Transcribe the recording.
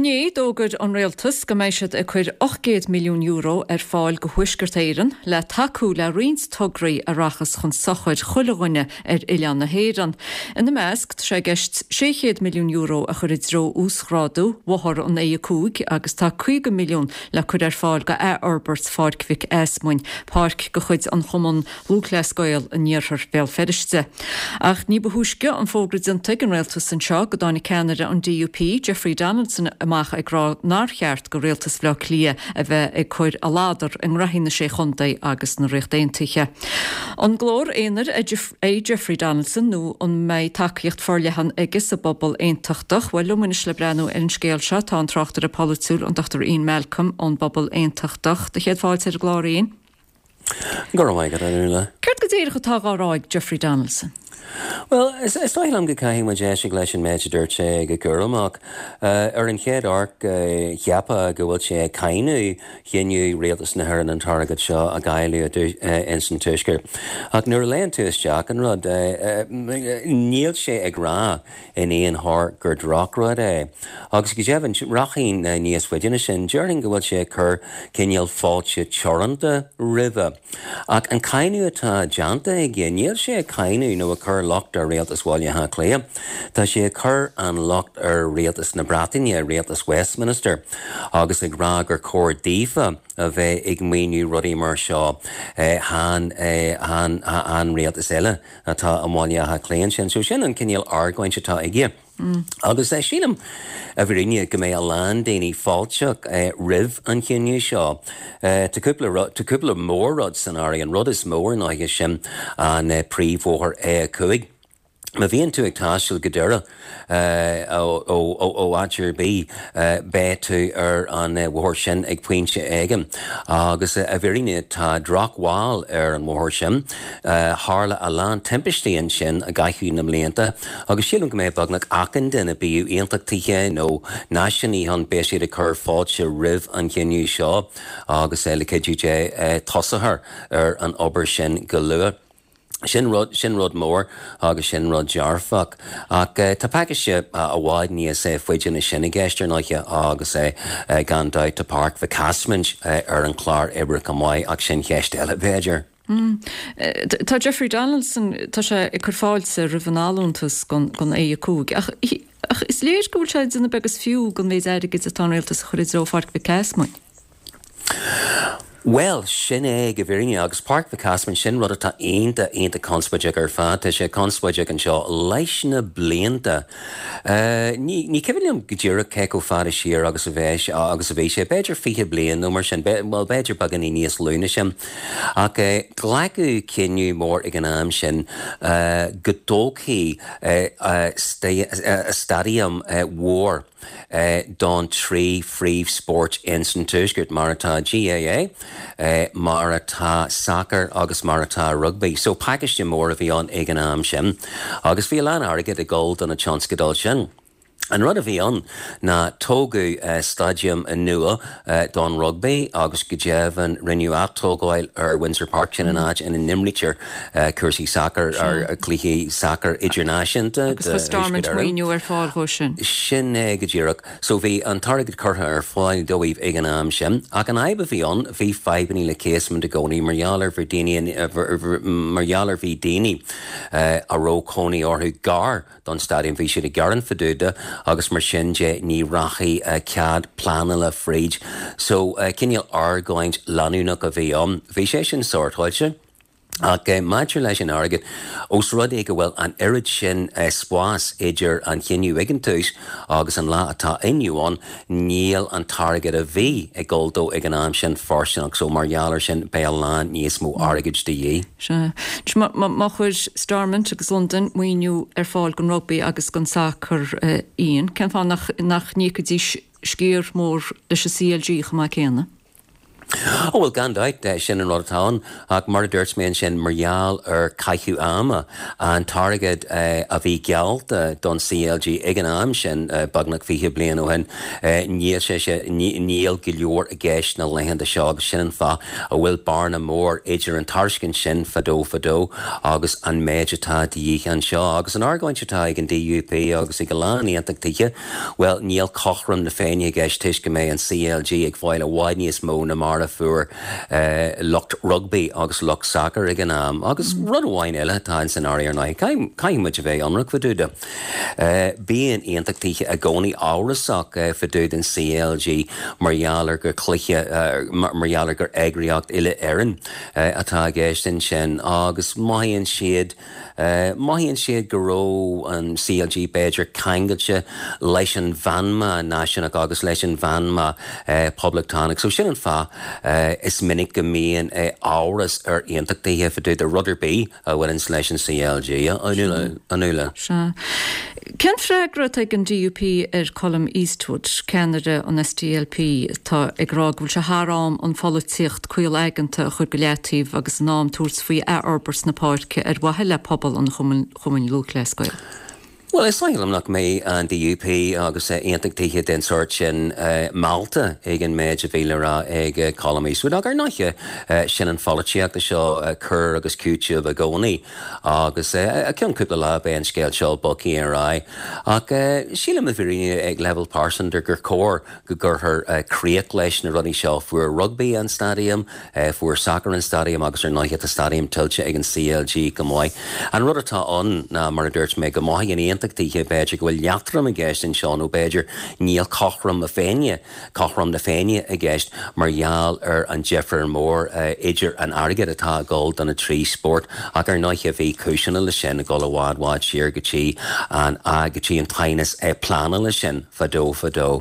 Inné, d'fhógair an Rialtas go mbeidh siad ag cur €800 milliún ar fáil go Thuaisceart Éireann le tacú le roinnt tograí a rachas chun sochair chuile dhuine ar oileán na hÉireann. Ina measc, tá sé i gceist €600 milliún a chur i dtreo uasghrádú bhóthar an A5 agus tá 50 milliún le cur ar fáil go athfhorbairt Pháirc Mhic Easmuinn, páirc de chuid an Chumann Lúthchleas Gael in iarthar Bhéal Feirste. Ach ní ba thúisce an fógra déanta ag an rialtas anseo go dtáinig ceannaire an DUP, Jeffrey Donaldson amach ag rá nár cheart go rialtas Bhaile Átha Cliath a bheith ag cur a ladar i ngraithí na Sé Chontae agus na Ríochta Aontaithe. An glór aonair é Jeffrey Donaldson nó an mbeidh tacaíocht forleathan aige sa bpobal aontachtach? Bhuel, liom anois le breathnú ar an scéal seo tá an tráchtaire polaitiúil, an Dr Ian Malcolm ón bPobal Aontachtach. Do chéad fáilte ar an gclár, Ian. Go raibh maith agat, a Fhionnuala. Céard go díreach atá dhá rá ag Jeffrey Donaldson? Bhuel, is dóigh liom go gcaithfidh muid éisteacht leis an méid a dúirt sé go cúramach. Ar an chéad amharc, cheapfá go bhfuil sé ag cáineadh chinneadh Rialtas na hÉireann an t-airgead seo a dháileadh ins an Tuaisceart. Ach nuair a léann tú isteach an rud, níl sé ag rá in aon chor gur drochrud é. Agus go deimhin, rachainn níos faide ná sin, déarfainn go bhfuil sé ag cur cineál fáilte teoranta roimhe. Ach an cáineadh atá déanta aige, níl sé ag cáineadh nó ag cur locht ar Rialtas Bhaile Átha Cliath. Tá sé ag cur an locht ar Rialtas na Breataine, Rialtas Westminster, agus ag rá gur chóir daofa a bheith ag maoiniú rudaí mar seo, chan, chan, an rialtas eile. atá i mBaile Átha Cliath ansin. So sin an cineál argóint atá aige. Agus sílim, i bhfírinne, go mbeidh a lán daoine fáilteach roimh an chinneadh seo. Tá cúpla rud, tá cúpla mór-rud san áireamh. An rud is mó ar ndóighe sin an príomhbhóthar A5. Má bhíonn tú ag taisteal go Doire ó áit ar bith, beidh tú ar an bhóthar sin ag pointe éigin. Agus i bhfírinne tá drochbhail ar an bhóthar sin. Tharla a lán timpistí ansin i gcaitheamh na mblianta agus sílim go mbeidh beagnach achan duine, bíodh aontachtaithe nó náisiúnaithe ann, beidh siad ag cur fáilte roimh an chinneadh seo agus le cuidiú Dé tosófar ar an obair sin go luath. Sin rud, sin rud mór agus sin rud dearfach. Ach tá pacáiste i bhfad níos faide ná sin i gceist ar ndóighe agus gan dabht tá Páirc Mhic Easmaint ar an chlár oibre chomh maith ach sin ceist eile b'fhéidir. Tá Jeffrey Donaldson, tá sé ag cur fáilte roimh an allúntas don A5 ach ach is léir go bhfuil sé ag déanamh beag is fiú den mhéid airgid atá an rialtas a chur i dtreo Pháirc Mhic Easmainn. Bhuel, sin é go bhfírinne, agus Páirc Mhic Easmainn, sin rud atá iontach, iontach conspóideach ar fad. Tá sé conspóideach anseo leis na blianta. Ní, ní cuimhin liom go díreach cé chomh fada siar agus a bheidh, agus a bhí sé, b'fhéidir 20 bliain nó mar sin, bhuel, b'fhéidir beagáinín níos lú ná sin. Ach glacadh cinneadh mór ag an am sin go dtógfaí staidiam mhór, don trí phríomhspórt ins an Tuaisceart, mar atá GAA, mar atá sacar agus mar atá rugbaí. So pacáiste mór a bhí ann ag an am sin agus bhí a lán airgid ag dul do na tionscadail sin. An rud a bhí ann ná tógadh staidiam nua don rugbaí agus go deimhin rinneadh atógáil ar Windsor Park, sin an áit ina n-imrítear cúrsaí sacair, cluichí sacair idirnáisiúnta Agus chuir Stormont maoiniú ar fáil dhó sin. Sin é go díreach. So bhí an t-airgead curtha ar fáil dóibh ag an am sin. Ach an fhadhb a bhí ann, bhí fadhbannaí le Casement i gcónaí mar gheall ar bhí daoine, mar gheall ar bhí daoine a raibh cónaí orthu gar don staidiam. Bhí siad ag gearán fá dtaobh de agus mar sin de ní rachaidh cead pleanála fríd. So cineál argóint leanúnach a bhí ann. Bhí sé sin sórtáilte. Ach maidir leis an airgead, ós rud é go bhfuil an oiread sin spáis idir an chinneadh ag an tús agus an lá atá inniu ann, níl an t-airgead a bhí ag dul dó ag an am sin fóirsteanach. So mar gheall air sin, beidh a lán níos mó airgid de dhíth. Sea. Má chuir Stormont agus Londain maoiniú ar fáil don rugbaí agus don sacar, Ian, cén fáth nach n-íocfaidís sciar mór leis an CLG chomh maith céanna? Ó bhuel, gan dabht, sin an rud atá ann. Ach mar a dúirt mé ansin, mar gheall ar caitheamh ama, an t-airgead a bhí geallta don CLG ag an am sin, beagnach 20 bliain ó shin, níl sé sé, níl go leor i gceist na laethanta seo agus sin an fáth a bhfuil bearna mór idir an tairiscint sin fadó fadó agus an méid atá de dhíth anseo. Agus an argóint atá ag an DUP agus ag a lán aontachtaithe, Bhuel, níl cothrom na Féinne i gceist toisc go mbeidh an CLG ag fáil i bhfad níos mó ná mar a fuair lucht rugbaí agus lucht sacair ag an am. Agus rud amháin eile atá ins an áireamh ar ndóigh, caithfidh muid a bheith ionraic fá dtaobh de. Bíonn aontachtaithe i gcónaí amhrasach fá dtaobh den CLG mar gheall ar gur cluiche, mar gheall ar gur eagraíocht uile-Éireann atá i gceist ansin agus mothaíonn siad, Mothaíonn siad go raibh an CLG b'fhéidir ceangailte leis an mheanma náisiúnach agus leis an mheanma poblachtánach. So sin an fáth is minic go mbíonn amhras ar aontachtaithe fá dtaobh de rud ar bith a bhaineanns leis an CLG, a Nuala. Sea. Cén freagra atá ag an DUP ar Colum Eastwood, ceannaire an SDLP, atá ag rá go bhfuil sé thar am an pholaitíocht caol aigeanta a chur go leataobh agus in am tabhairt faoi athfhorbairt na páirce ar mhaithe le pobal an Chumainn Lúthchleas Gael? Bhuel, is dóigh liom nach mbeidh an DUP agus aontachtaithe den sórt sin meallta ag an méid a bhí le rá ag Colum Eastwood. Ach ar ndóighe, sin an pholaitíocht seo, cur agus cúiteamh i gcónaí. Agus i gceann cúpla lá beidh an scéal seo bogtha ar aghaidh. Ach sílim i bhfírinne ag leibhéal pearsanta gur chóir go gcuirfear críoch leis na rudaí seo. Fuair rugbaí an staidiam, fuair sacar an staidiam agus ar ndóighe tá staidiam tuillte ag an CLG go maith. An rud atá ann ná, mar a dúirt mé, go mothaíonn aontachtaithe b'fhéidir go bhfuil leatrom i gceist anseo nó b'fhéidir níl cothrom na Féinne, cothrom na Féinne i gceist mar gheall ar an difear mór idir an airgead atá ag dul do na trí spórt ach ar ndóighe bhí cúiseanna leis sin ag dul i bhfad bhfad siar go dtí an go dtí an t-aighneas pleanála sin fadó fadó.